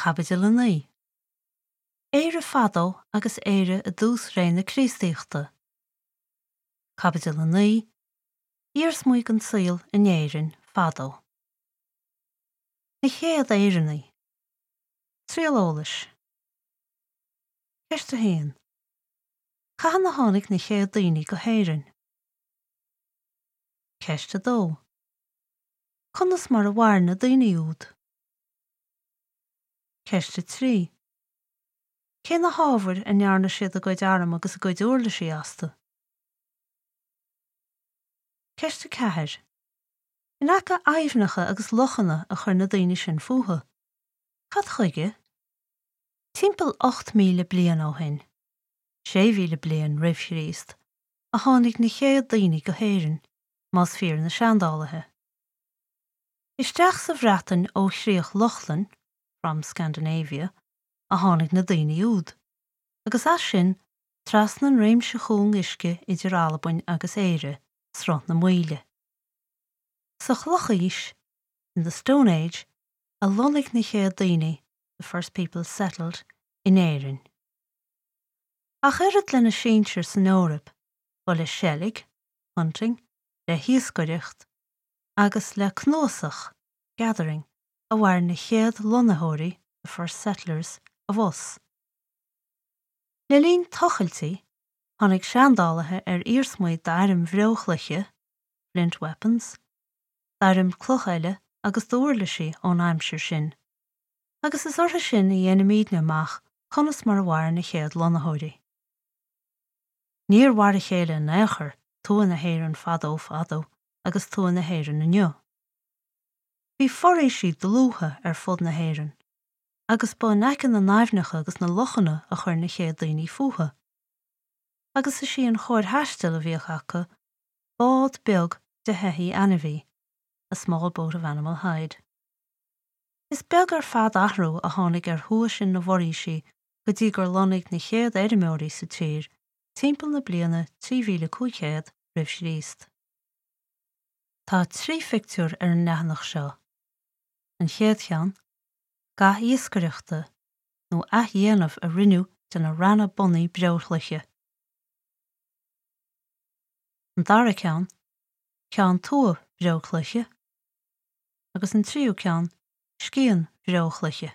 Caibidil 9. Éire fadó agus Éire i dtús ré na Críostaíochta. Caibidil 9. Iarsmaí den saol in Éirinn fadó. Na chéad Éireannaigh. Triail eolais. Ceist 1. Cathain a tháinig na chéad daoine go hÉirinn? Ceist 2. Conas mar a mhair na daoine úd? Ceist 3. Cé na hábhair a ndearna siad a gcuid arm agus a gcuid uirlisí astu? Ceist 4. In aice aibhneacha agus lochanna a chuir na daoine sin fúthu. Cad chuige? Timpeall 8,000 bliain ó shin, 6,000 bliain roimh Chríost, a tháinig na chéad daoine go hÉirinn, más fíor na seandálaithe. Isteach sa Bhreatain ó Chríoch Lochlann, from Scandinavia, a tháinig na daoine úd, agus as sin trasna an réimse chúng uisce idir Albain agus Éire, Sruth na Maoile. Sa Chlochaois, in the Stone Age, a lonnaigh na chéad daoine, the first people settled, in Éirinn. Ach oiread lena sinsir san Eoraip, ba le seilg, hunting, le hiascaireacht, agus le cnuasach, gathering, a mhair na chéad lonnaitheoirí, the first settlers, abhus. Le linn tochailtí, tháinig seandálaithe ar iarsmaí d'airm bhreochloiche, flint weapons, d'airm cloch eile agus d'uirlisí ón aimsir sin, agus is orthu sin a dhéanaimidne amach conas mar a mhair na chéad lonnaitheoirí. Níor mhar a chéile in aon chor tuath na hÉireann fadó fadó agus tuath na hÉireann inniu. Bhí foraoisí dlútha ar fud na hÉireann, agus ba in aice na n-aibhneacha agus na lochanna a chuir na chéad daoine fúthu. Agus is í an chóir thaistil a bhíodh acu bád beag de sheithí ainmhí, a small boat of animal hide. Is beag ar fad athrú a tháinig ar thuath sin na bhforaoisí go dtí gur lonnaigh na chéad fheirmeoirí sa tír timpeall na bliana 3500 roimh Chríost. Tá 3 phictiúr ar an leathanach seo. An chéad cheann, ga iascaireachta nó athdhéanamh a rinneadh de na reanna bunaidh breochloiche. An dara ceann, ceann tua breochloiche. Agus an tríú ceann, scian bhreochloiche.